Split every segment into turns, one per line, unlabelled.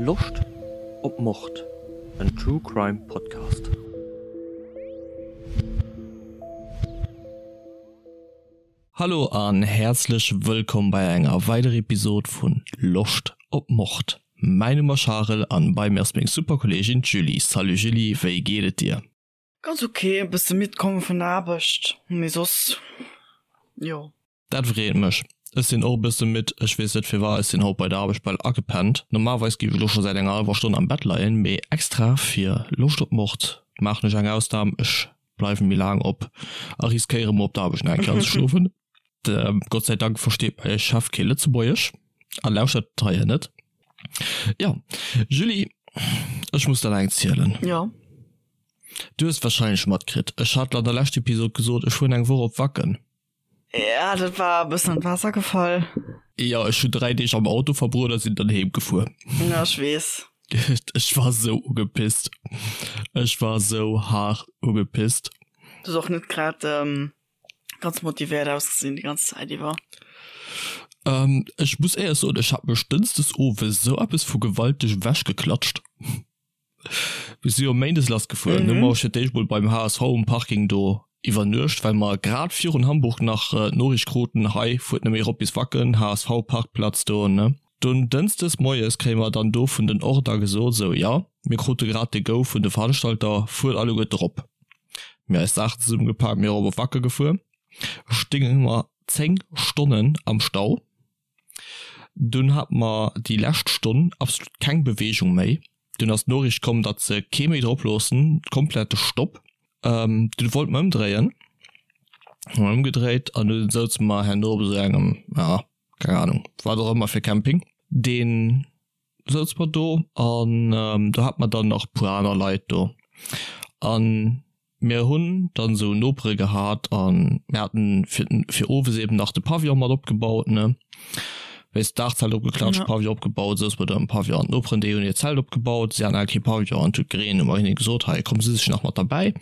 Loscht op Mord? En True Crime Podcast. Hallo an häerzlech wëllkomm bei enger weiderer Episode vun Loscht op Mord. Mäin Numm ass Charel an bei mir ass meng super Kolleegin d'Julie. Salut Julie, wéi geet et dir?
Ganz ok, e bësse midd komm vun der Aarbecht, mee soss jo.
Dat freet mech. Ech sinn och e bësse midd, ech weess net firwat, ech sinn haut bei der Aarbecht bal agepennt. Normalerweis géif ech elo scho säit enger hallwer Stonn am Bett leien, mee extra fir Loscht op Mord maachen ech eng Ausnam, ech bleiwen méi laang op a riskéiere mol op der Aarbecht nach eng Kéier anzeschlofen. Gott sei Dank versteet mäi Chef kee Lëtzebuergesch a lauschtert d'Reihe net. Jo, Julie, ech muss der nach eng zielen.
Jo.
Du hues wahrscheinlech matkritt, ech hat an der lescht Episod gesot, ech fueren eng Woch op Wacken.
Ja, dat war e bëssen an d'Waasser gefall.
Jo, ech hunn 3 Deeg am Auto verbruet a sinn dann heem gefuer.
Ja, ech weess.
Ech war sou ugepisst. Ech war sou haart ugepisst.
Du hues och net grad ganz motivéiert ausgesinn déi ganz Zäit iwwer.
Ech muss éierlech soen, ech hat mech dënschdes owes sou eppes vu gewalteg ewechgeklatscht. Mir si jo méindes lass gefuer. Mhm. Du mer fir d'éischt mol beim HSV um Parking do iwwernuecht, well mer grad virun Hamburg nach äh, d'Noriicht kruten, hei fuert net méi erop bis Wacken, HSV Parkplatz do, ne. Dunn dënschdes moies kréie mer dann do vun den Order gesot, sou jo, mir krute grad de Go vun de Veranstalter, fuert alleguerte rop. Mir eis Saachen zesummegepak, mir erop op Wacke gefuer. Stinge mer 10 Stonnen am Stau. Dunn hat mer déi lescht Stonn absolut keng Beweegung méi. Dunn ass d'Noriicht komm, datt se kee méi drop loossen, komplette Stopp. Dunn wollt mer ëmdréien, hu mer ëmgedréit an dunn souze mer herno op esou engem, ja, keng Ahnung, wat och ëmmer fir Camping, deen souz mer do an do hat mer dann nach puer aner Leit do an mir hunn dann esou Nopere gehat an mir haten fir fir owes eben nach de Pavillon mat opgebaut ne wéis d'Daachzelt opgeklatscht, ja. Pavillon opgebaut, souz mer do am Pavillon an d'Noperen déi hunn hiert Zelt opgebaut, si haten awer kee Pavillon an et huet gereent, hu mer hinne gesot hei komm si sech nach mat derbäi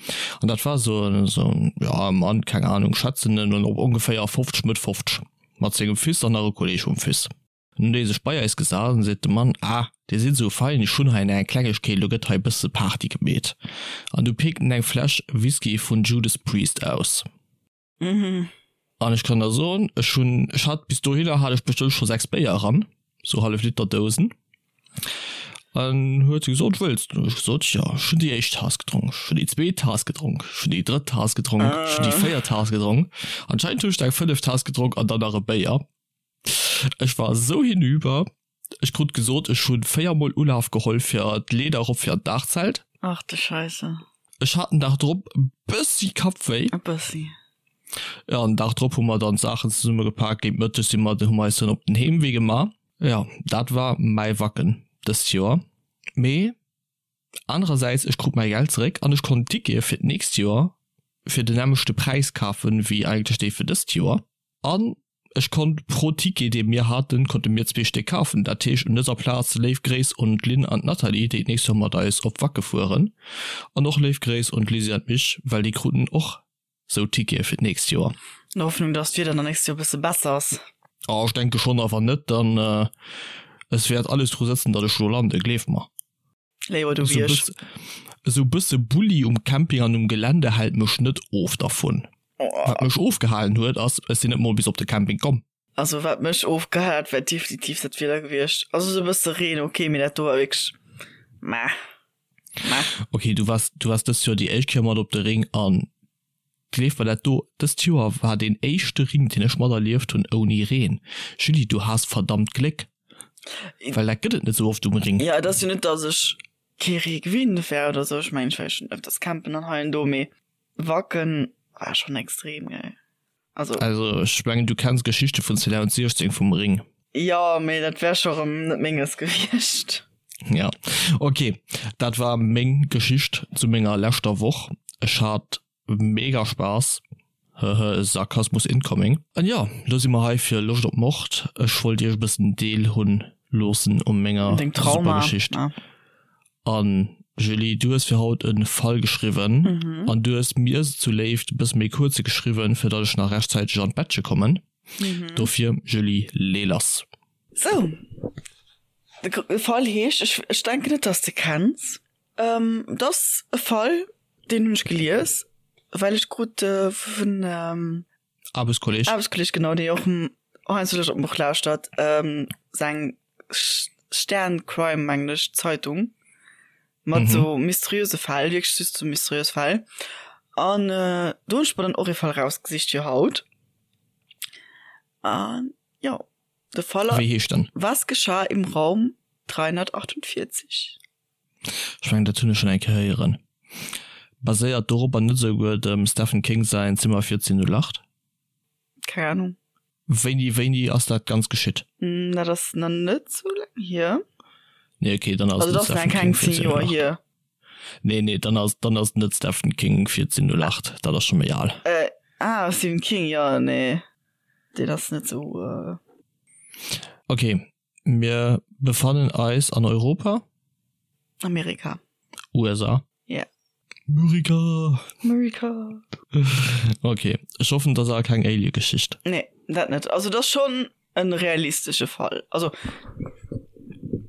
an dat war esou en esou en ja e Mann keng Ahnung schätzen en op ongeféier 50 Mëtt 50 mat sengem Fils an nach e Kolleeg vum Fils. Nun huet ee sech bei eis gesat an seet de Mann, Ah, dir sidd esou fein, ech hunn hei eng Klengegkeet, elo gëtt hei e bësse Party gemeet. An du pikt en eng Fläsch Whisky vun Judas Priest aus. An ech kann der soen, ech hunn, ech hat bis dohinner hat ech bestëmmt scho 6 Béier eran, sou hallef Liter Dousen. An huet se gesot, wëlls du? Ech gesot, jo, ech hunn déi éischt Taass gedronk, ech hunn déi zweet Taass gedronk, ech hunn déi drëtt Taass gedronk, ech hunn déi véiert Taass gedronk. Anscheinend hunn ech der eng fënneft Taass gedronk an dann nach e Béier. Ech war esou hinüber. Ech krut gesot, ech hu 4 mol Ulaf geholl fir d'Leeder erop fir an d'Daachzelt.
Ach de Scheisse.
Ech hat den Dag drop e bëssi Kappwéi.
E bëssi.
Jo, an den Dag drop hu mer dann d'Saachen zesumme gepak. Géint Mëtteg si mer, hu mer eis dann op den Heemwee gemaach. Jo, dat war mäi Wacken dëst Joer. Mee anerersäits, ech krut mäi Geld zeréck an ech konnt Tickete fir d'nächst Joer fir den nämmlechte Präis kafen, wéi eigentlech déi fir dëst Joer. An ech konnt pro Ticket, dee mir haten, konnte mir zwee Stéck kafen. Dat heescht, un dëser Plaz léif Gréiss un d'Lynn an d'Nathalie, déi d'nächst Joer mat eis op Wacke fueren. An och léif Gréiss un d'Lizzy an d'Mich, well déi kruten och sou Tickete fir d'nächst Joer.
An der Hoffnung, dass d'Wieder dann nächst Joer e bësse besser ass.
Oh, ech denke schonn, a wann net, dann, es wäert alles dru sëtzen, datt ech do landen, gleef mer.
Léiwer du wéi ech.
Esou bësse Bulli um Camping an um Gelände hält mech net of dervun. Wat mech ofgehalen huet ass, ech sinn net mol bis op de Camping komm.
Also wat mech ofgehal hat, war definitiv dat Wieder gewiescht. Also esou e bësse Reen ok, mee dat do war wierklech meh
meh. Ok, du waars du waars dëst Joer déi éischt Kéier mat op de Ring an gleef mer dat do, dëst Joer war deen éischte Ring deen ech materlieft hunn ouni Reen. Julie, du has verdammt Gléck. Well dat gëtt et net sou oft um Ring.
Ja, et ass jo net, dass ech kee Ree gewinnt wär oder sou. Ech mengen, ech war jo schonn ëfters campen an hei an do, mee Wacken war schonn extrem, gell.
Also. Also ech mengen, du kenns Geschichte vun 2016 vum Ring.
Jo, mee dat wär scho rëm net menges gewiescht.
Ja, ok, dat war meng Geschicht zu menger leschter Woch. Ech hat Mega Spaass, hehe Sarkasmus incoming. An jo, lo si mer hei fir Loscht op Mord. Ech wollt iech e bëssen Deel hunn loossen u menger super Geschicht. An Julie, du hues fir haut e Fall geschriwwen an du hues mir zu Léift e bësse méi kuerze geschriwwen, fir datt ech nach rechtzäiteg an d'Bettche kommen. Dofir Julie, lee lass.
Sou. De Fall heescht, ech, ech denken net, dass de kenns. Ähm, et ass e Fall, deen hunn ech gelies, well ech krut vun ähm,
Aarbechtskolleg.
Aarbechtskolleg, genau, dee och heiansdo Loscht op d'Buch lauschtert, ähm, seng Stern Crime, mengen ech, Zeitung mat sou mysteriöse Fäll, wierklech just sou mysteriös Fäll. An do hunn ech mer dann och ee Fall rausgesicht fir haut. An jo, de Fall
Wéi heescht en?
Was geschah im Raum 348?
Ech mengen dat hunn ech schonn eng Kéier héieren. Baséiert doropper net esouguer dem Stephen King säin Zimmer 1408?
Keng Ahnung.
Wéini, wéini ass dat ganz geschitt?
Dat ass nach net sou laang hier.
Nee okay, dann ass
Also
net
dat ass nach
Stephen
keng
King
10 Joer
1408.
hier.
Nee nee, dann ass, dann ass net Stephen King 1408, dat ass scho méi al.
Äh, ah Stephen King, jo nee, deen ass net sou.
Okay, Mir befannen eis an Europa.
Amerika.
USA.
Ja.
Murica.
Murica.
Okay, ech hoffen, dat ass awer keng Alien-Geschicht.
Nee, dat net. Also dat ass schonn en realistesche Fall. Also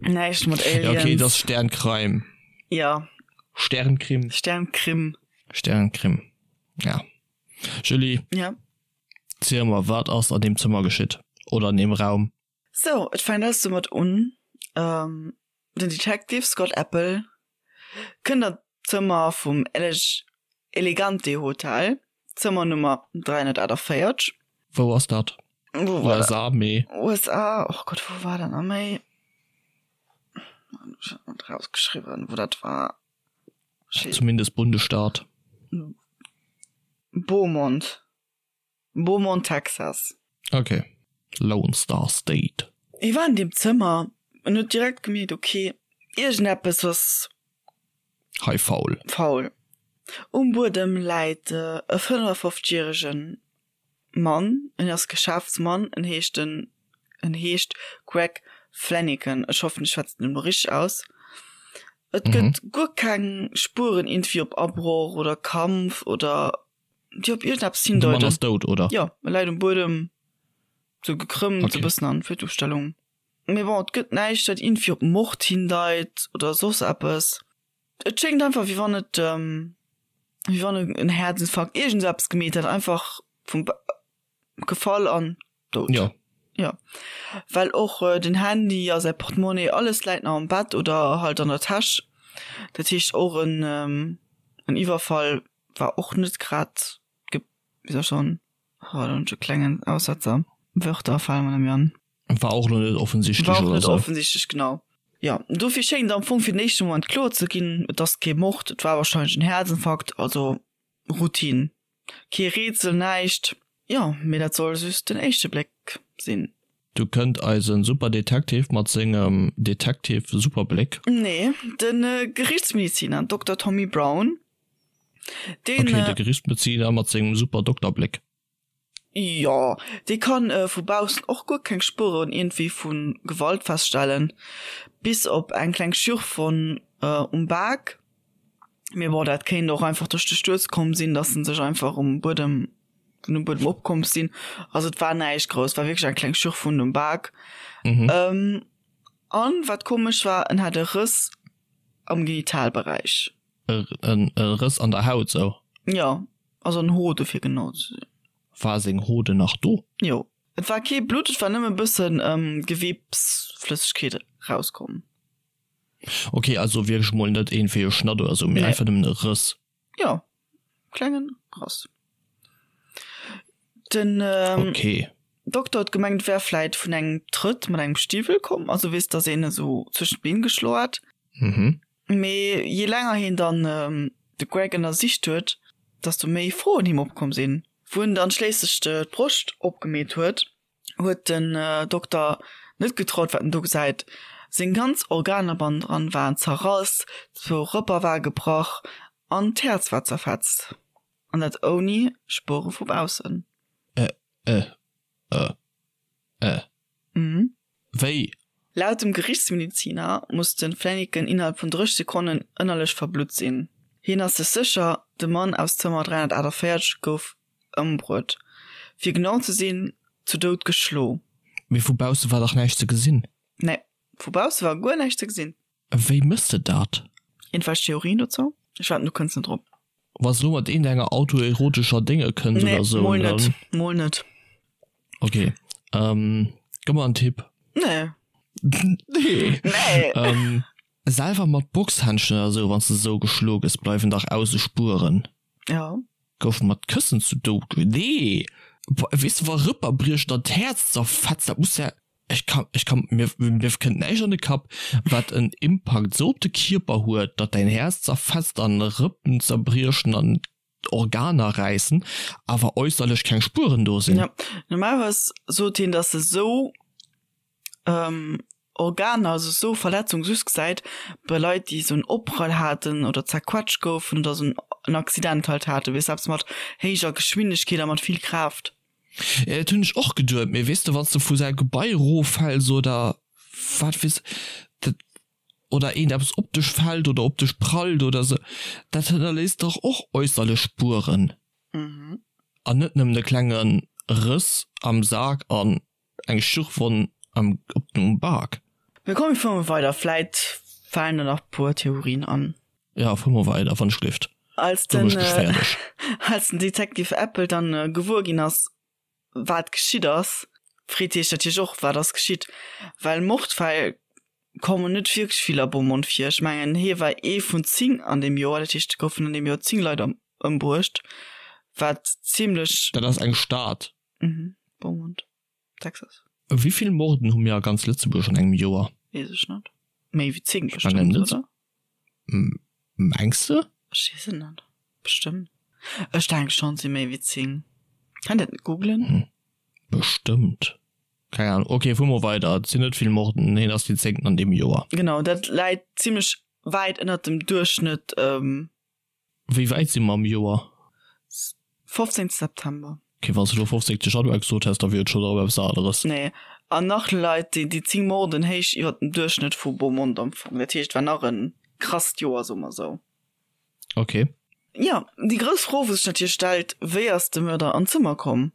näischt mat
Aliens. Ja, okay, dat ass Sterncrime.
Ja.
Sternkrim.
Sternkrim.
Sternkrim, ja. Julie.
Ja.
Ziel mer, wat ass an deem Zëmmer geschitt? Oder an deem Raum?
Sou, et fänkt alles domat un, den Detective Scott Apple kënnt an d'Zëmmer vum Elegante Hotel, Zëmmer Nummer 348.
Wou ass dat?
Wou war dat?
USA, mee.
USA, och Gott, wou war dat nach méi? Ech hat net rausgeschriwwen, wou dat war.
Zumindest Bundesstaat.
Beaumont. Beaumont, Texas.
Ok, Lone Star State.
Hie war an deem Zëmmer en huet direkt gemierkt, ok, iergendeppes ass.
Hei faul.
Faul. Um Buedem läit e 55 järege Mann, en ass Geschäftsmann, en heescht den, en heescht Greg Fleniken, ech hoffen ech schwätzen en elo richteg aus. Et gëtt guer keng Spueren iergendwéi op Abroch oder Kampf oder déi op iergendeppes
De Mann
hindeuten.
ass dout, oder?
Jo, e läit um Buedem, sou gekrëmmt,
Okay.
e bëssen an Fötusstellung. Mee bon, et gëtt näischt, wat iergendwéi op Mord hindeit oder soss eppes. Et schéngt einfach, wéi wann et, wéi wann en Häerzinfarkt, iergend sou eppes gemeet hätt, einfach vum gefall an dout.
Jo.
Jo. Well och den Handy a säi Portemonnaie, alles läit nach am Bett oder halt an der Täsch. Dat heescht och en, en Iwwerfall war och net grad ge, wéi soll ech soen, oh do hunn ech e klengen Aussetzer, Wörter fale mer net méi an.
War och lo net offensichtlech
War och
oder
net
sou.
offensichtlech, genau. Jo, dofir schéngt am Fong fir den éischte Moment kloer ze ginn, et ass kee Mord, et war wahrscheinlech en Häerzinfarkt, also Routine. Kee Rätsel, näischt. Jo, mee dat soll just den éischte Bléck sinn.
Du kënnt eisen Super Detective mat sengem Detective Superbléck.
Nee, de Gerichtsmediziner Dokter Tommy Brown, deen.
Ok, de Gerichtsmediziner mat sengem Super Dokterbléck.
Jo, dee kann vu baussen och guer keng Spueren iergendwéi vu Gewalt feststellen, bis op eng kleng Schürfwonn um Bak. Mee bon, dat kéint och einfach duerch de Stuerz komm sinn, dass en sech einfach um Buedem, vun dem Buedem opkomm sinn. Also et war näischt grouss, war wierklech eng kleng Schürfwunn um Bak. Mhm. An wat komesch war, en hat e Rëss am Genitalberäich.
E Rëss an der Haut sou?
Jo, also en Hode fir genau ze sinn.
War seng Hode nach do?
Jo. Et war kee Blutt, et war nëmme e bëssen Gewebsflëssegkeet rauskomm.
Ok, also wierklech mol net iergendwéi e Schnatt oder sou, mee
Nee.
einfach nëmmen e Rëss.
Jo, klengen Rëss. Den
Ok.
Dokter huet gemengt, et wär vläit vun engem Trëtt mat engem Stiwwel komm, also weess, dass een e sou zwëschen d'Been geschloen hat.
Mhm.
Mee je länger hien dann de Greg ënnersicht huet, desto méi Froen him opkomm sinn. Wou en dann schléisslech d'Broscht opgemeet huet, huet den Dokter net getraut, wat en do gesäit. Seng ganz Organer bannendran waren zerrass, zwou Rëpper ware gebrach an d'Häerz war zerfetzt. An dat ouni Spuere vu baussen.
Ä, ä, ä, ä.
Mhm.
Wéi?
Laut dem Gerichtsmediziner muss de Flanagan innerhalb vun 30 Sekonnen ënnerlech verblutt sinn. Hien ass sech sécher, de Mann aus Zëmmer 348 gouf ëmbruet. Fir genau ze sinn, zu Doud geschlo.
Mee vu bausse war dach näischt ze gesinn.
Nee. Vu bausse war guer näischt ze gesinn.
Wéi mëss de dat?
Iergendwelch Theorien dozou? Ech wetten du kënns net drop.
Wanns de lo mat iergendenger autoerotescher Dénge kënns
Nee, oder sou, mol net, dann. Mol net.
Ok, ähm, gëmm mer en Tipp.
Nee.
Nee.
Nee.
Ähm, selwer mat Boxhändschen oder sou, wanns de sou geschlo gëss, bleiwen dach ausse Spueren.
Ja.
Gouf mat Këssen zu Doud ge. Nee! Weess de, wa Rëpper briechen an d'Häerz zerfetzt, dat muss ja. Ech kann, ech kann, mir, mir kënnt näischt an de Kapp, wat en Impakt sou op de Kierper huet, datt däin Häerz zerfetzt an Rëppen zerbriechen an Organer räissen, awer äusserlech keng Spueren do sinn.
Ja, normalerweis sot hien, datt e sou Organer, also sou Verletzung just gesäit bei Leit, déi sou en Opprall haten oder zerquetscht goufen oder sou en Accident halt haten, weess eppes mat héijer Geschwindegkeet a mat vill Kraaft.
Ja, dat hunn ech och geduet, mee weess de, wann s de vu säi Gebai eroffäls oder wat weess, dat, oder eent eppes op dech fält oder op dech prallt oder sou, dat hënnerléisst dach och äusserlech Spueren. An net nëmmen e klenge Rëss am Sak an eng Schürfwonn am, op dem Bak.
Mee komm, mir fuere mol weider, vläit falen der nach puer Theorien an.
Ja, fuer mol weider, wann ech gelift.
Als den, als den Detective Apple dann gewuer ginn ass, wat geschitt ass, freet hie sech natierlech och, wat ass geschitt, well Mordfäll kommen net wierklech vill a Beaumont vir. Ech mengen, hie war ee vun 10 an deem Joer, dat heescht, et goufen an deem Joer 10 Leit ëmbruecht, wat zimmlech.
Dat ass eng Stad.
Mhm, Beaumont. Texas.
Wéi vill Morden hu mir a ganz Lëtzebuerg an engem Joer?
Weess ech net. Méi wéi 10 bestëmmt, oder?
Mengs de?
Ech weess et net. Bestëmmt. Ech denke schonn, et si méi wéi 10. Kann dat net googlen?
Hm. Bestëmmt. Keng Ahnung. Ok, fuer mol weider. Et sinn net vill Morden. Hien ass deen zéngten an deem Joer.
Genau, dat läit zimlech wäit ënnert dem Duerchschnëtt.
Wéi wäit si mer am Joer?
15 September.
Ok, wann s de elo 15 Januar gesot häss, da wier et schonn erëm eppes aneres.
Nee, an nach leit déi 10 Morden héich iwwer dem Duerchschnëtt vu Beaumont am Fong. Dat heescht, et war nach e krasst Joer, soe mer esou.
Ok.
Jo, déi grouss Fro, wou sech natierlech stellt, Wéi ass de Mörder an d'Zëmmer komm?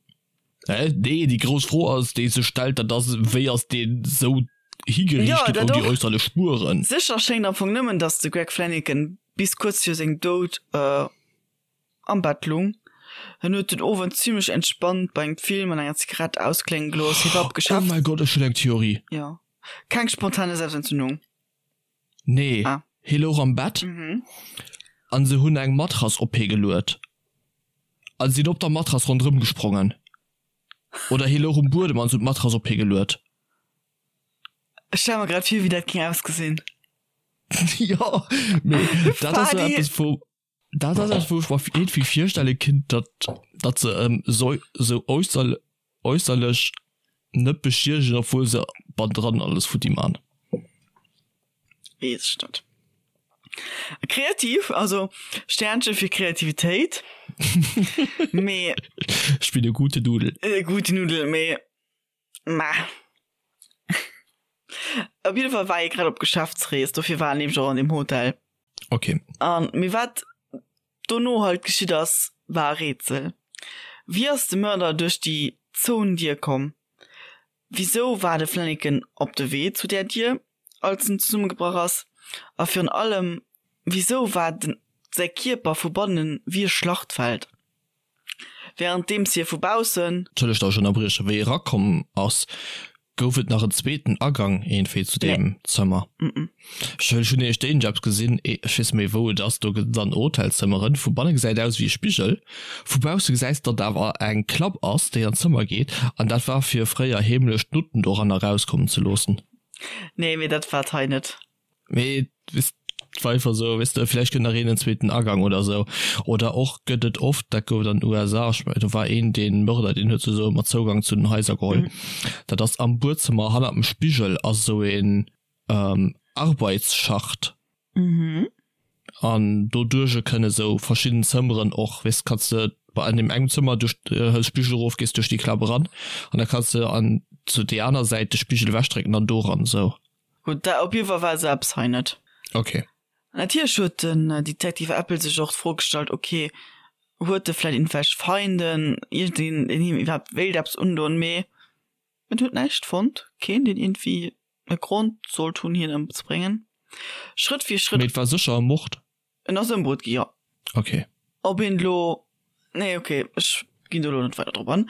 Hä? Nee, déi grouss Fro ass, déi sech stellt, dat ass, Wéi ass deen esou higeriicht
ginn
ouni äusserlech Spueren?
Sécher schéngt am Fong nëmmen, datt de Greg Fleniken bis kuerz viru sengem Doud am Bett lung. En huet den Owend zimmlech entspannt bei engem Film an enger Zigarett ausklénge gelooss. Hie war op
Geschäfts. Oh mäi Gott, ech hunn eng Theorie.
Jo. Keng spontane Selbstentzündung.
Nee, hie louch am Bett an se hunn eng Matrass op hie geluet a sinn op der Matrass ronderëm gesprongen. Oder hie louch um Buedem an se hunn d'Matrass op hie geluet.
Ech stelle mer grad vir, wéi dat géing ausgesinn.
Jo, mee dat ass esou eppes, wou. Dat ass eppes, wou ech mer iergendwéi virstelle kinnt, datt, datt se em sou, sou äusser, äusserlech net beschiedegen, obwuel se bannendran alles futti man.
Weess ech net. Kreativ, also Sternche fir Kreativitéit, mee.
Ech bin e gute Nudel.
E gute Nudel, mee ma. Op jidde Fall war hie grad op Geschäftsrees, dofir war en nämlech och an deem Hotel.
Ok.
An, mee wat dono halt geschitt ass, war e Rätsel. Wéi ass de Mörder duerch déi zouen Dier komm? Wisou war de Flanagan op de Wee zu där Dier, als en zesummegebrach ass? A virun allem, wisou war den säi Kierper vu bannen wéi e Schlachtfeld? Wärenddeems hie vu baussen.
Entschëllegt, datt ech ënnerbriechen. Wéi e erakomm ass, gouf et nach en zweeten Agang iergendwéi zu deem Zëmmer. Ech hunn nämlech déi eppes gesinn, ech weess net méi wou et ass, do gëtt et an Hotelzëmmeren, vu banne gesäit aus wéi e Spigel, vu bausse gesäis de, datt awer eng Klapp ass, déi an d'Zëmmer geet, an dat war fir fréier heemlech d'Nutten doran erauskommen ze loossen.
Nee, mee dat war et hei net.
Mee et war einfach esou, weess de, vläicht gëtt nach een en zweeten Agang oder esou. Oder och gëtt et oft, dat gouf et an den USA, ech mengen do war een dee Mörder, deen huet sech esou ëmmer Zougang zu den Haiser geholl. Dat ass am Buedzëmmer hannert dem Spigel ass esou een Arbeitsschacht. An doduerch kënne sou verschidden Zëmmeren och, weess, kanns de bei an deem engem Zëmmer duerch, hëls Spigel erof, gees duerch déi Klapp eran an da kanns de an zu déi aner Säit de Spigel ewechdrécken an do eran esou.
Gutt, da op jiddwer Fall war esou eppes hei net.
Ok.
Natierlech huet den Detective Apple sech och d'Fro gestallt, ok, huet e vläit iergendwelch Feinden, iergendeen, deen him iwwerhaapt wéilt eppes undoen, mee en huet näischt fonnt, keen, deen iergendwéi. e Grond sollt hunn, hien ëmzebréngen. Schrëtt fir Schrëtt.
Mee et war sécher e Mord?
En ass ëmbruet gi, jo.
Ok.
Ob een elo, nee ok, ech ginn do elo net weider drop an.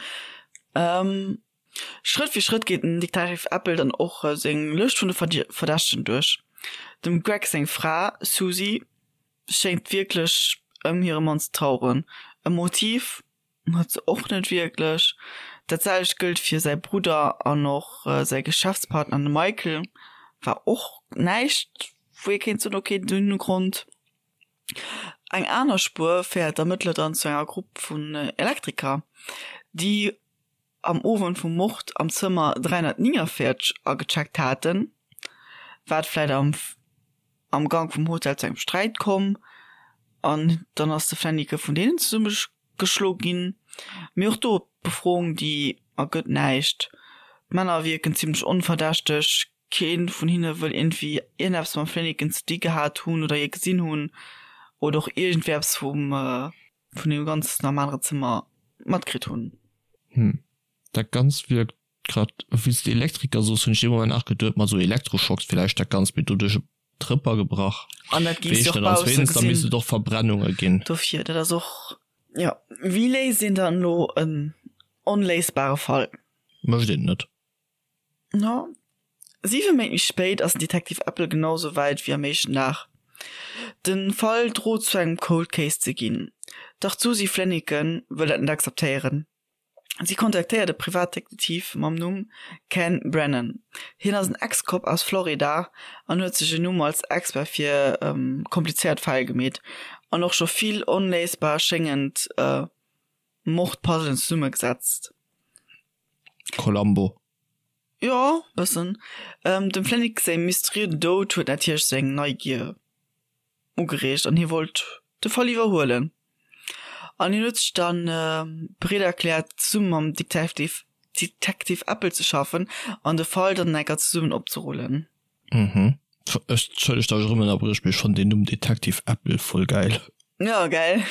Schrëtt fir Schrëtt geet den Detective Apple dann och seng Lëscht vun de Verdächtegen duerch. Dem Greg seng Fra Susie schéngt wierklech ëm hire Mann ze traueren. E Motiv huet se och net wierklech. Dat selwecht gëllt fir säi Brudder an och säi Geschäftspartner, de Michael, war och näischt, wou ee kéint soen, ok, déi hunn e Grond. Eng aner Spuer féiert d'Ermëttler dann zu enger Grupp vun Elektriker, déi am Owend vum Mord am Zëmmer 349 agecheckt haten. Wat vläit am am Gank vum Hotel zu engem Sträit komm an dann ass de Flennike vun deenen zesumme geschlo ginn. Mee och do, d'Befroung déi ergëtt näischt. D'Männer wierken zimmlech onverdächteg, kee vun hinne wëll iergendwéi iergendeppes mam Flenneken ze di gehat hunn oder hie gesinn hunn oder och iergendwéi eppes vum vun deem Ganzen am anere Zëmmer matkritt hunn.
Hm, dat Ganzt wierkt Grad wéi s de Elektriker soos, hunn ech dee Moment nach geduet, ma sou Elektroschocks villäicht dat Ganzt, mee doduerch e Trëpper gebrach.
An dat géifs de och bausse
gesinn. Da misst et och Verbrennunge ginn.
Dofir, dat ass och, jo. Wéi léist een dann elo en onléisbare Fall?
Mécht een net.
No 7 Méint méi spéit ass den Detective Apple genau sou wäit wéi am éischten Dag. De Fall drot zu engem Cold Case ze ginn, dach d'Suzy Flanigan wëll dat net akzeptéieren. Si kontaktéiert e Privatdetektiv mam Numm Ken Brennan. Hien ass en Ex-Cop aus Florida an huet sech en Numm als Expert fir komplizéiert Fäll gemeet an och scho vill onléisbar schéngend Mordpuzzlen zesummegesetzt.
Columbo.
Jo, bëssen. Dem Flanick säi mysteriösen Doud huet natierlech seng Neigier ugereegt an hie wollt de Fall iwwerhuelen. An hien huet sech dann bereet erkläert zesumme mam Detective Detective Apple ze schaffen an de Fall dann enker zesummen opzerullen.
Mhm. Ech, entschëllegt datt ech erëm ënnerbriech, mee ech fannen deen Numm Detective Apple voll gäil.
Jo, gell?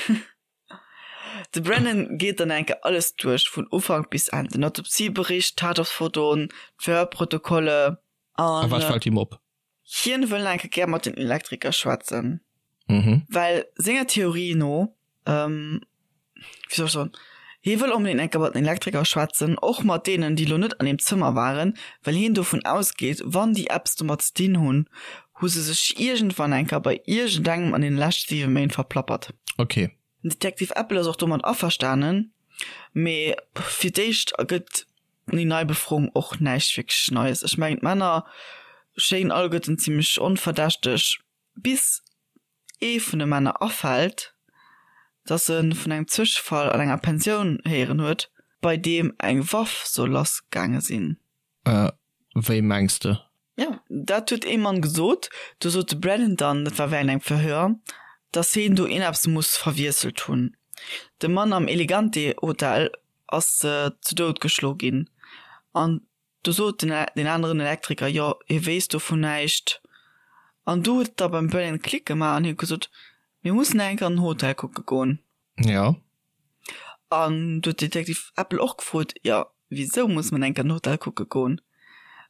De Brennan geet dann enker alles duerch, vun Ufank bis Enn, den Autopsiebericht, d'Tatortfotoen, d'Verhörprotokolle
an. A wat fält him op?
Hien wëll enke gär mat den Elektriker schwätzen, well senger Theorie no, wéi soll ech soen, hie wëll onbedéngt enke mat den Elektriker schwätzen, och mat deenen, déi lo net an deem Zëmmer waren, well hien dovun ausgeet, wann déi eppes domat ze dinn hunn, hu se sech iergendwann enker bei iergendengem an deene leschte 7 Méint verplappert.
Okay.
Den Detective Apple ass och domat averstanen, mee fir d'éischt ergëtt Déi nei Befroung och näischt wierklech Neies. Ech mengen d'Männer schéngen alleguerten zimmlech onverdächteg, bis ee vun de Männer afält, dass e vun engem Zwëschefall an enger Pensioun héieren huet, bei deem eng Waff soll lass gaange sinn.
Wéi mengs de?
Jo, dat huet ee Mann gesot. Do sot de Brennan dann, dat war wärend engem Verhör, dass heen do ieneppes muss verwiesselt hunn. De Mann am Elegante Hotel ass zu Doud geschlo ginn. An du sot den deen aneren Elektriker, jo, hie wéisst dovun näischt. An du huet et da beim Brennan Klick gemaach an hie huet gesot, mir mussen eng Kéier an den Hotel kucke goen.
Jo.
An du huet Detective Apple och gefrot, jo, wisou muss mer eng Kéier an den Hotel kucke goen?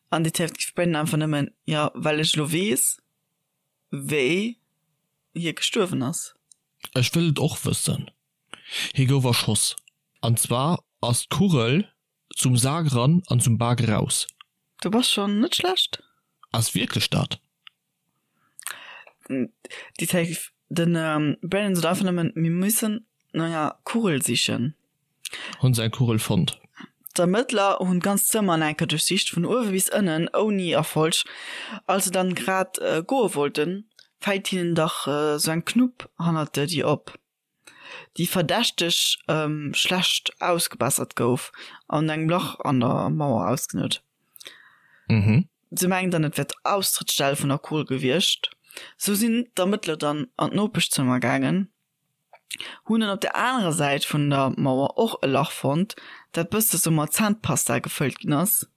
An Detective Brennan einfach nëmmen, jo, well ech elo weess, wéi hie gestuerwen ass.
Ech wëll et och wëssen. Hie gouf erschoss. An zwar ass d'Kugel zum Sak eran an zum Bak eraus.
Du bass schon net schlecht.
Ass wierklech dat?
Detective, Den Brennan sot einfach nëmmen, mir müssen no enger Kugel sichen.
Hunn se eng Kugel fonnt?
D'Ermëttler hunn d'ganz Zëmmer an enker duerchsicht, vun uewe bis ënnen, ouni Erfolg. Als se dann grad goe wollten, fält hinnen dach sou eng Knupp hannert der Dier op. déi verdächteg schlecht ausgebessert gouf an engem Lach an der Mauer ausgenut.
Mhm.
Se mengen dann, et wär d'Austrëttsstell vun der Kugel gewiescht. Sou sinn d'Ermëttler dann an d'Nopeschzëmmer gaangen, hunn dann op der anerer Säit vun der Mauer och e Lach fonnt, dat bësse sou mat Zännpasta gefëllt ginn ass.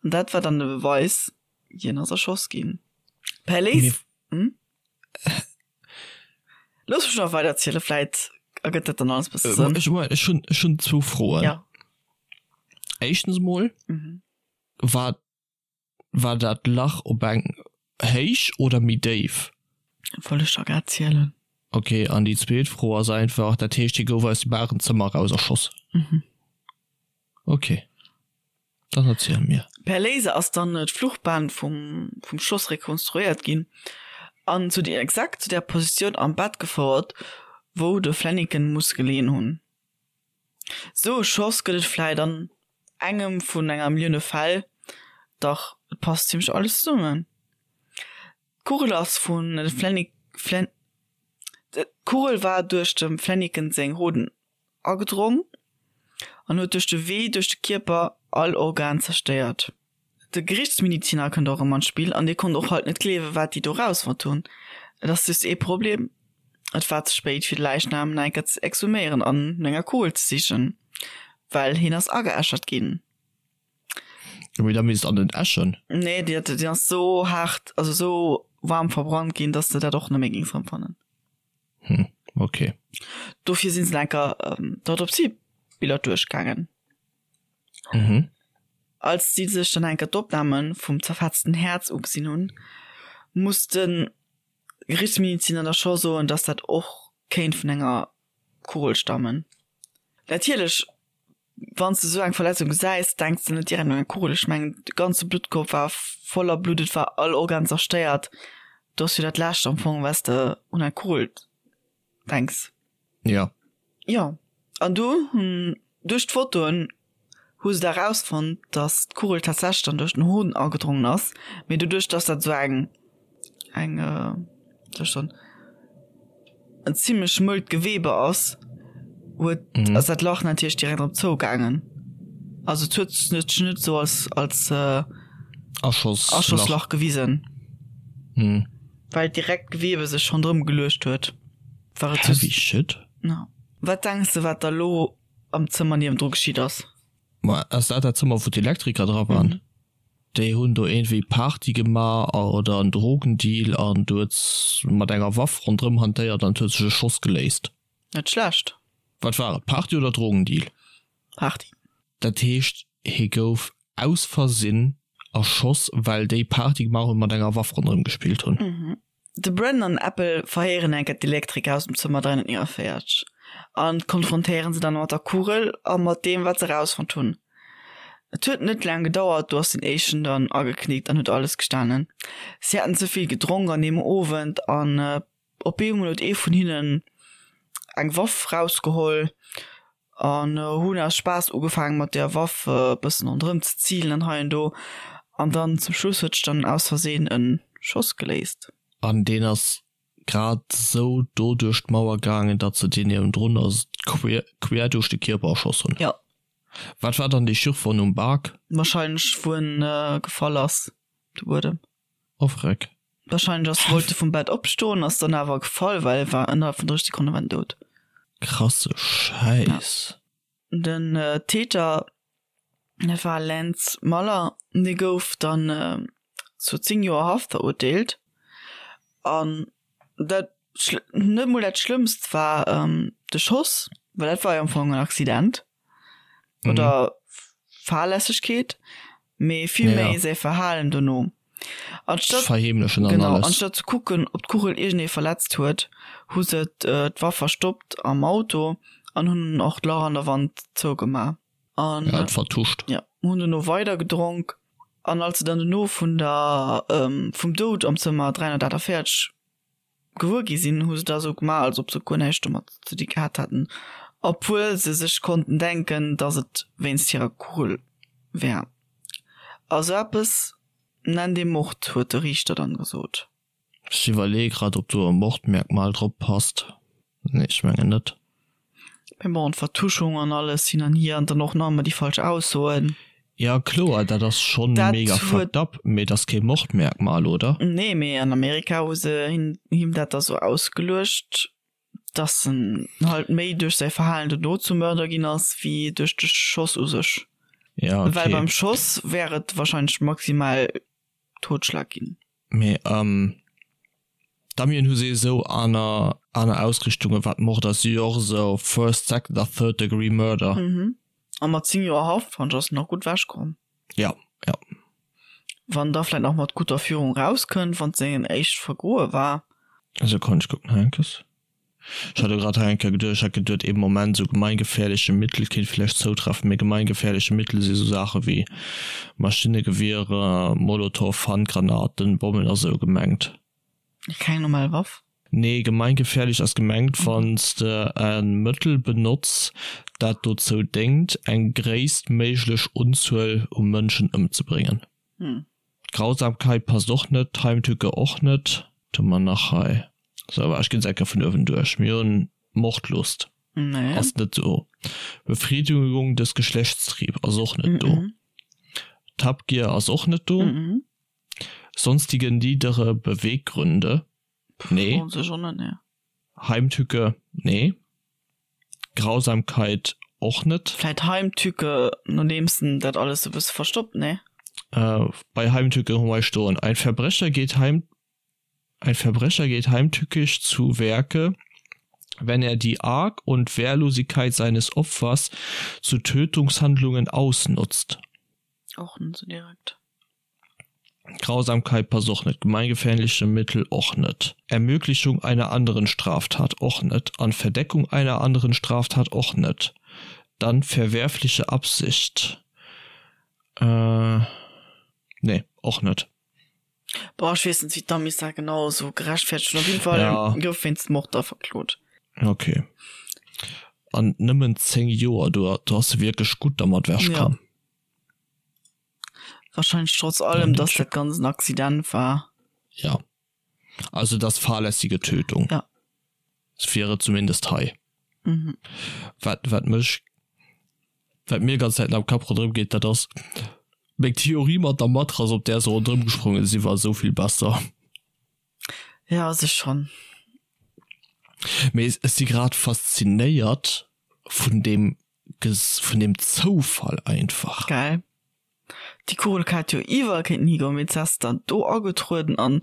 An dat war dann de Beweis, hien ass erschoss ginn. Per Léis. Hm? Looss mech nach weider erzielen, vläit ergëtt dat dann alles bësse
Sënn. Ech, ech hunn, ech hunn zwou Froen.
Ja.
Éischtens emol, mhm. war. War dat Lach op eng Héich oder méi déif?
Wollt ech der grad zielen.
Ok, an déi zweet Fro ass einfach, dat heescht hie gouf aus dem Barenzëmmer eraus erschoss?
Mhm.
Ok, dann erziel mir.
Per Laser ass dann d'Fluchbahn vum vum Schoss rekonstruéiert ginn an zu der exakt zu der Positioun am Bett gefouert, wou de Flaniken muss geleeën hunn. Sou e Schoss gëtt et vläit an engem vun enger Millioune Fäll, dach et passt zimlech alles zesummen. D'Kugel ass vun de Flaniken, Flan, d'Kugel war duerch dem Flaniken seng Hoden agedrong an huet duerch de Wee duerch de Kierper all Organ zerstéiert. De Gerichtsmediziner kënnt och erëm an d'Spill an dee konnt och halt net gleewen, wat déi do rausfonnt hunn. Et ass just ee Problem, Et war ze spéit fir de Läichnam nach eng Kéier ze exhuméieren an no enger Kugel ze sichen, well hien ass ageäschert ginn.
Jo, mee da misst an den Äschen.
Nee, déi déi ass sou haart, also sou waarm verbrannt ginn, dass de dat och net méi géings erëmfannen.
Hm, okay.
Dofir sinn se nach eng Kéier d'Autopsiebiller duerchgaangen.
Mhm.
Als si sech dann enker d'Opname vum zerfetzten Häerz ugesinn hunn, muss de Gerichtsmediziner da scho soen, dass dat och kéint vun enger Kugel stammen. Natierlech, wann s de esou eng Verletzung gesäis, denks de net direkt un eng Kugel. Ech mengen, de ganze Bluttkorb war voller Blutt, et war all Organ zerstéiert. Do ass jo dat Lescht am Fong, wat s de un eng Kugel denks.
Ja.
Jo, an du hunn duerch d'Fotoen hu se da rausfonnt, dass d'Kugel tatsächlech dann duerch den Hoden agedrongen ass, mee doduerch dass dat esou eng eng wéi soll ech soen en zimmlech mëllt Gewebe ass, huet ass dat Lach natierlech direkt erëm zougaangen. Also et huet sech net esou als als
Aschosslach
Aschosslach gewisen. Well direkt d'Gewebe sech ronderëm geluecht huet,
war et Heavy shit.
Ja. Wat denks de wat da lo am Zëmmer niewendru geschitt ass?
Ma ass dat dat Zëmmer wou d'Elektriker dra waren? Déi hunn do iergendwéi Party gemaach oder en Drogendeal an du huet mat enger Waff ronderëm hantéiert an et huet sech e Schoss geléist.
Net schlecht.
Wat war et, Party oder Drogendeal?
Party.
Dat heescht hie gouf aus Versinn erschoss well déi Party gemaach hunn mat enger Waff ronderëm gespillt
hunn. De Brandon an Apple verhéieren enker d'Elektriker aus dem Zëmmer 349 an konfrontéieren se dann mat der Kugel a mat deem wat se erausfonnt hunn. Et huet net laang gedauert, do ass den éischten dann ageknickt an huet alles gestanen. Si haten ze vill gedronk an deem Owend an op eemol huet ee vun hinnen eng Waff rausgeholl an hunn aus Spaass ugefaangen mat där Waff e bëssen ronderëm ze zilen an hei an do an dann zum Schluss huet sech dann aus Versehen e Schoss geléist.
An deen ass grad esou do duerch d'Mauer gaangen, datt se deen niewendrun ass quer duerch de Kierper erschoss hunn.
Jo.
Wat war dann dee Schürfwonn um Bak?
Wahrscheinlech wou en gefall ass, de Buedem.
Oh freck.
Wahrscheinlech ass wollt e vum Bett opstoen, ass dann awer gefall, well e war ënnerhalb vun 30 Sekonne war en dout.
Krasse Schäiss.
Den Täter, dat war Lance Muller, dee gouf dann zu 10 Joer Haft verurteelt. An dat net mol dat Schlëmmst war de Schoss, well dat war jo am Fong en Accident. Oder Fahrlässegkeet, mee vill méi säi Verhalen dono.
Anstatt, Verheemlechen an
genau, alles. anstatt ze kucken, ob d'Kugel iergendee verletzt huet, hu se d'Waff verstoppt am Auto an hunn och d'Lach an der Wand zougemaach.
An Ja, et vertuscht.
ja, hunn dono weider gedronk. An als se dann dono vun der, vum Doud am Zëmmer 348 gewuer gi sinn, hu se da sou gemaach, als ob se guer näischt domat ze di gehat hätten, obwuel se sech konnten denken, datt et wéinst hirer Kugel wär. A sou eppes nennt ee Mord, huet de Riichter dann gesot.
Ech iwwerleeë grad, ob do e Mordmerkmal drop passt. Nee, ech mengen net.
Mee bon, d'Vertuschung an alles hin an hier an dann och nach ëmmer déi falsch Aussoen.
Ja kloer, dat ass schonn mega fucked up, mee et ass kee Mordmerkmal, oder?
Nee, mee an Amerika hu se him dat da sou ausgeluecht, dass en halt méi duerch säi Verhalen dono zum Mörder ginn ass, wéi duerch de Schoss u sech.
Ja, okay.
Well beim Schoss wär et wahrscheinlech maximal Totschlag ginn.
Mee d'Amien hu se esou aner aner Ausrichtungen wat Mord ass, si jo och esou first, second a third degree murder.
Mhm. A mat 10 Joer Haft fannt ech ass en nach gutt ewech komm.
Ja, ja.
Wann da vläit nach mat guter Führung rauskënnt, wann et sengen éischt Vergoe war.
Sekonn, ech kucken hei enkes. Ech hat elo grad hei eng Kéier geduecht, ech hat geduet ee Moment, esou gemeingefährliche Mittel kéint vläicht zoutreffen, mee gemeingefährliche Mittel si sou Saache wéi Maschinnegewiere, Molotow, Handgranaten, Bommen a sou gemengt.
Keng normal Waff?
Nee, gemeingefährlich ass gemengt, wann s de e Mëttel benotz, dat dozou déngt, eng gréisstméiglech Unzuel u Mënschen ëmzebréngen. Grausamkeit passt och net, Heimtücke och net. Wat hu mer nach hei? Sou, ech ginn se eng Kéier vun uewen duerch. Mir hunn Mordlust, ass net do. Befriedigung des Geschlechtstrieb ass och net do. D'Habgier ass och net do. Sonstige niedere Beweggründe, nee. Heimtücke, nee. Grausamkeit och net.
Vläit Heimtücke, nodeems en dat alles e bësse verstoppt, nee?
Bei Heimtücke hu mer stoen, Ein Verbrecher geht heim, Ein Verbrecher geht heimtückisch zu Werke, wenn er die Arg und Wehrlosigkeit seines Opfers zu Tötungshandlungen ausnutzt.
Och net sou direkt.
Grausamkeit passt och net, gemeingefährliche Mittel och net, Ermöglichung einer anderen Straftat och net an Verdeckung einer anderen Straftat och net. Dann verwerfliche Absicht, nee, och net.
Boah, ech weess net, wéi d'Amis dat genau esou gerechtfertegt hunn. Op jeden Fall gouf wéinst Mord da verklot.
Ok. An nëmmen 10 Joer, do ass se wierklech gutt dermat wechkomm.
Wahrscheinlech trotz allem, dass dat ganz en Accident war.
Ja. Also das fahrlässige Tötung.
Ja.
Das wäre zumindest hei. Mhm. Wat, wat mech, wat mir ganz Zäiten am Kapp ronderëm geet, dat ass meng Theorie mat der Matrass, op där se ronderëm gesprongen si, war esou vill besser.
Ja, se schon.
Mee ech si grad faszinéiert vun deem vun dem Zoufall einfach.
Geil. Déi Kugel hätt jo iwwerall kéinten higoen, mee se ass dann do agetrueden an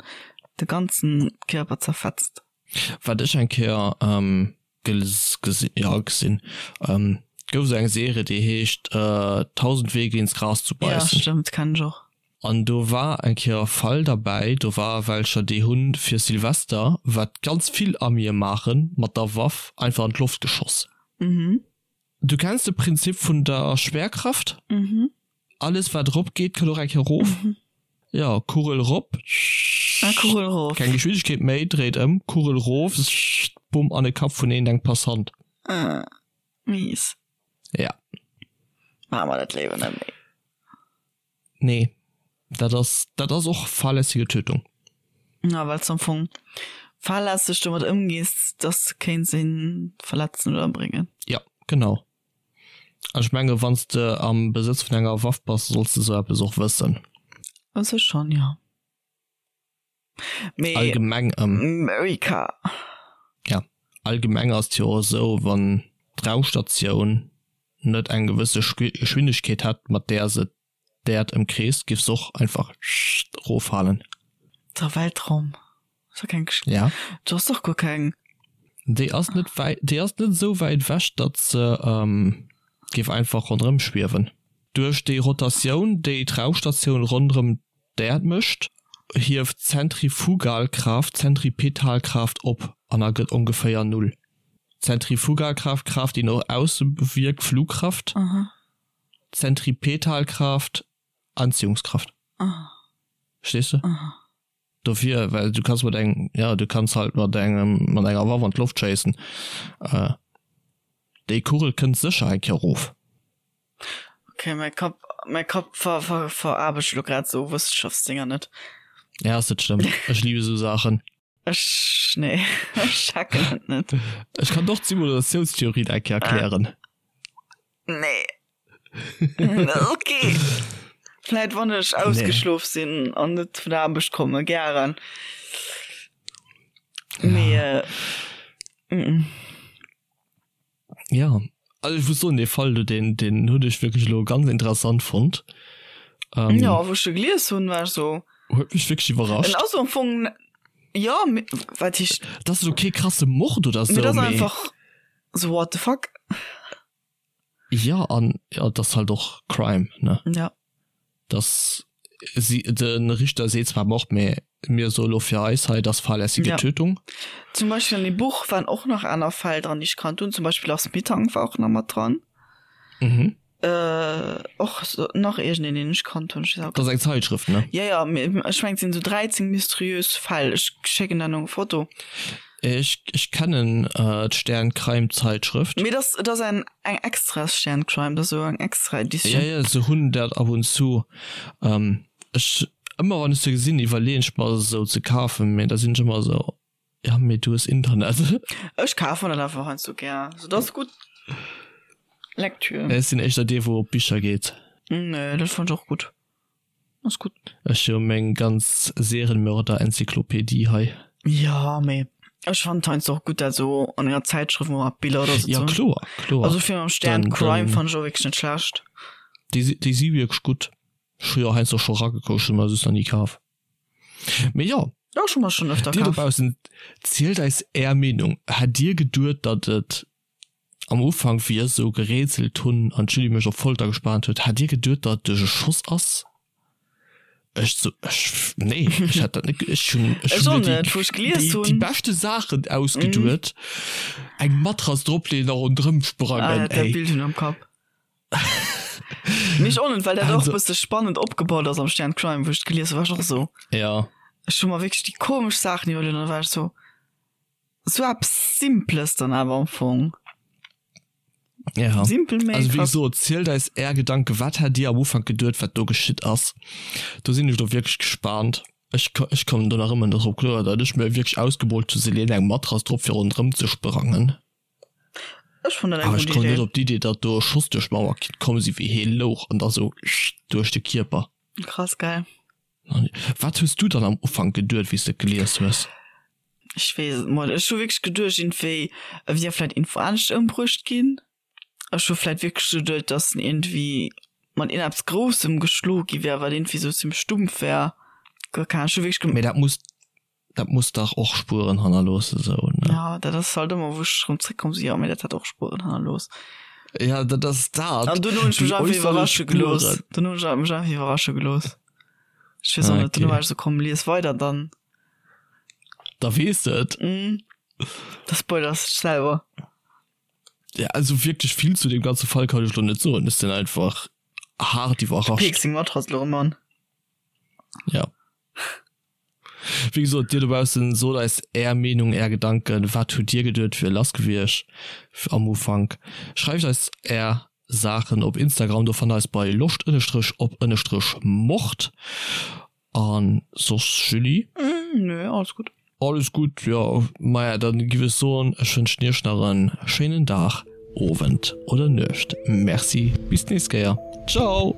de ganzen Kierper zerfetzt.
Wat ech eng Kéier gesinn, jo gesinn, gouf esou eng Serie déi heescht 1000 Wege ins Gras zu beißen.
Jo stëmmt, kenn ech och.
An do war eng Kéier e Fall derbäi, do war welcher déi hunn fir Silvester, wat ganz vill Amië maachen, mat der Waff einfach an d'Loft geschoss.
Mhm.
Du kenns de Prinzip vun der Schwerkraft?
Mhm.
Alles wat erop geet, kënnt och eng Kéier erof.
Mhm.
Jo, Kugel erop,
Ah, Kugel erof.
keng Geschwindegkeet méi, dréit ëm, Kugel erof, bumm, an de Kapp vun een engem Passant.
Ah, mies.
Ja.
Maache mer dat léiwer net méi.
Nee, dat ass, dat ass och fahrlässige Tötung.
Ja, well s am Fong fahrlässeg domat ëmgees, dass de kéints een verletzen oder ëmbréngen.
Ja, genau. An ech menge wann s de am Besëtz vun enger Waff bass, solls de sou eppes och wëssen.
U sech schonn, jo.
Mee allgemeng
America.
Ja, allgemeng ass et jo och esou, wann d'Raumstatioun net eng gewësse Geschwindegkeet hätt, mat där se d'Äerd ëmkreest, giff se och einfach eroffalen.
Der Weltraum ass jo keng,
ja,
do ass och guer keng.
Déi ass net wäit, déi ass net esou wäit ewech, datt se géif einfach ronderëm schwiewen. Duerch déi Rotatioun, déi d'Raumstatioun ronderëm D'Äerd mécht hieft d'Zentrifugalkraaft d'Zentripetalkraaft op an ergëtt ongeféier Null. D'Zentrifugalkraaft, Kraaft déi no ausse wierkt, Flugkraft, Zentripetalkraaft, Anziehungskraft. Verstees de? Dofir, well du kanns mat engem, jo du kanns halt mat engem, mat enger Waff an d'Loft schéissen, déi Kugel kënnt sécher eng Kéier erof.
Okay, mäi Kapp, mäi Kapp ver, ver, veraarbecht elo grad sou Wëssenschaftsdinger net.
Ja, ass net schlëmm. Ech liebe sou Saachen.
Ech, nee, ech checken et net.
Ech kann och d'Simulatiounstheorie eng Kéier erklären.
Nee. Okay. Vläit wann ech ausgeschlof sinn an net vun der Aarbecht komme, gären. Mee, äh, mm.
Ja, also ech muss soen, dee Fall do, deen, deen hunn ech wierklech elo ganz interessant fonnt.
Ähm, Ja, wou ech e gelies hunn, war ech so.
Huet mech wierklech iwwerrascht.
En ass am Fong, ja, wat heescht.
Dat ass elo kee krasse Mord oder
sou, mee. Dat ass einfach so what the fuck.
Ja, an ja, dat ass halt och Crime, ne?
Ja.
Dat ass. Si, de Richter seet zwar Mord, mee mir soe lo fir eis hei, et ass fahrlässige
Ja.
Tötung.
Zum Beispill an deem Buch waren och nach aner Fäll dran, déi ech kannt hunn. Zum Beispill Lars Mittank war och nach mat dran.
Mhm.
Äh, och so, nach iergendeen, deen ech kannt hunn. Ech weess awer
Dat ass eng Zeitschrëft, ne?
Ja, ja, mee ech mengen, et sinn esou 13 mysteriös Fäll. Ech schécken der nach eng Foto.
Ech, ech kennen d'Stern Crime Zeitschrëft.
Mee dat, dat ass eng, eng extra Stern Crime, dat ass esou eng extra Editioun.
Ja, ja, se hunn dat ab und zu. Ech, ëmmer wann ech se gesinn, iwwerleeën ech mer se esou ze kafen, mee da sinn ech ëmmer esou, ja mee du hues Internet.
Ech kafen dat einfach heiansdo gär, sou dat ass gutt Lektür.
Ech sinn éischter dee wou op Bicher geet.
Nee, dat fannen ech och gutt. Ass gutt.
Ech hu meng ganz Serienmörder-Enzyklopädie hei.
Jo, mee ech fannen et heiansdo och gutt dat esou an enger Zäitschrëft mol mat Biller oder sou ze
Ja
hunn.
kloer, kloer.
Also fir mam Stern
Dann,
Crime
dann
fannen ech och wierklech net schlecht.
Déi si, déi si wierklech gutt. Ech hu jo heiansdo scho ragekuckt, ech hu mer just nach ni kaf. Mee jo.
Jo, ech hu mer schonn öfter
Dir
kaf.
dobaussen, zielt eis är Meenung. Hätt dir geduet, datt et Am Ufank, wéi ech esou gerätselt hunn an d'Julie mech op Folter gespaant huet, Hat Dir geduet, datt et duerch e Schoss ass? Ech sou, ech, nee, ech hätt dat net, ech hunn, ech
Ech
hunn
och
mir déi,
net, wou ech gelies
déi, déi
hunn.
beschte Saachen ausgeduet, eng Matrass dropleeën a ronderëm
Ah,
sprangen,
dat
ey.
Bild hunn am Kapp. Mee ech och net, well dat och
Also.
bësse spannend opgebaut ass am Stern Crime, wou ech et gelies hunn, war ech och esou.
Ja.
Ech hu mer wierklech déi komesch Saachen iwwerluet an da war ech sou, Sou eppes Simples dann awer am Fong.
Ja.
Simpel mee
Also wéi
krass.
gesot, zielt eis är Gedanken, wat hat dir am Ufank geduet, wat do geschitt ass? Do sinn ech lo wierklech gespaant. Ech ech kommen do nach ëmmer net drop kloer, datt ech mir wierklech ausgemoolt hu se leeën eng Matrass drop fir ronderëm ze sprangen.
Ech fannen dat eng
Awer ech
gutt
komm net
Idee.
op d'Idee, datt do e Schoss duerch d'Mauer kinnt komm si wéi hee louch an da sou duerch de Kierper.
Krass geil.
Wat hues du dann am Ufank geduet, wéi s de et gelies hues?
Ech weess et mol. Ech hu wierklech geduecht iergendwéi e wier vläit iergendwou anescht ëmbruecht ginn. Ech hu vläit wierklech geduet, datt en iergendwéi mat iergendeppes Groussem geschloe gi wär, wat iergendwéi sou zimmlech stumpf wär. Guer keng Ahnung. Ech hu wierklech gem.
Mee dat muss, dat muss dach och Spueren hannerloossen, sou, ne?
Ja, dat ass halt ëmmer, wou ech erëm zréckkomm si, jo, mee dat hat och Spueren hannerlooss.
Ja, dat ass dat.
An dunn hunn ech mech
Déi
einfach
äusserlech
iwwerrasche gelooss.
Spueren.
Dunn hunn ech mech einfach iwwerrasche gelooss. Ech weess och
Ah,
net, dunn
okay.
war ech sou, komm, lies weider dann.
Da weess de et.
Mm. Da spoilers dech selwer.
Ja, also wierklech vill zu deem ganze Fall kann ech lo net soen. Ech sinn einfach haart iwwerrascht.
Peeks seng Matrass lo erëm an.
Ja. Wéi gesot, dir dobaussen, sot eis är Meenung, är Gedanken. Wat hutt dir geduet, wier lass gewiescht am Ufank? Schreift eis är Saachen op Instagram, do fannt der eis bei loscht ënnestrech op ënnestrech mord. An soss Julie?
Nö, alles gutt.
Alles gutt, jo. Maja, dann giff ech soen, ech wënschen iech nach en schéinen Dag, Owend oder Nuecht. Merci, bis d'nächst Kéier. Ciao!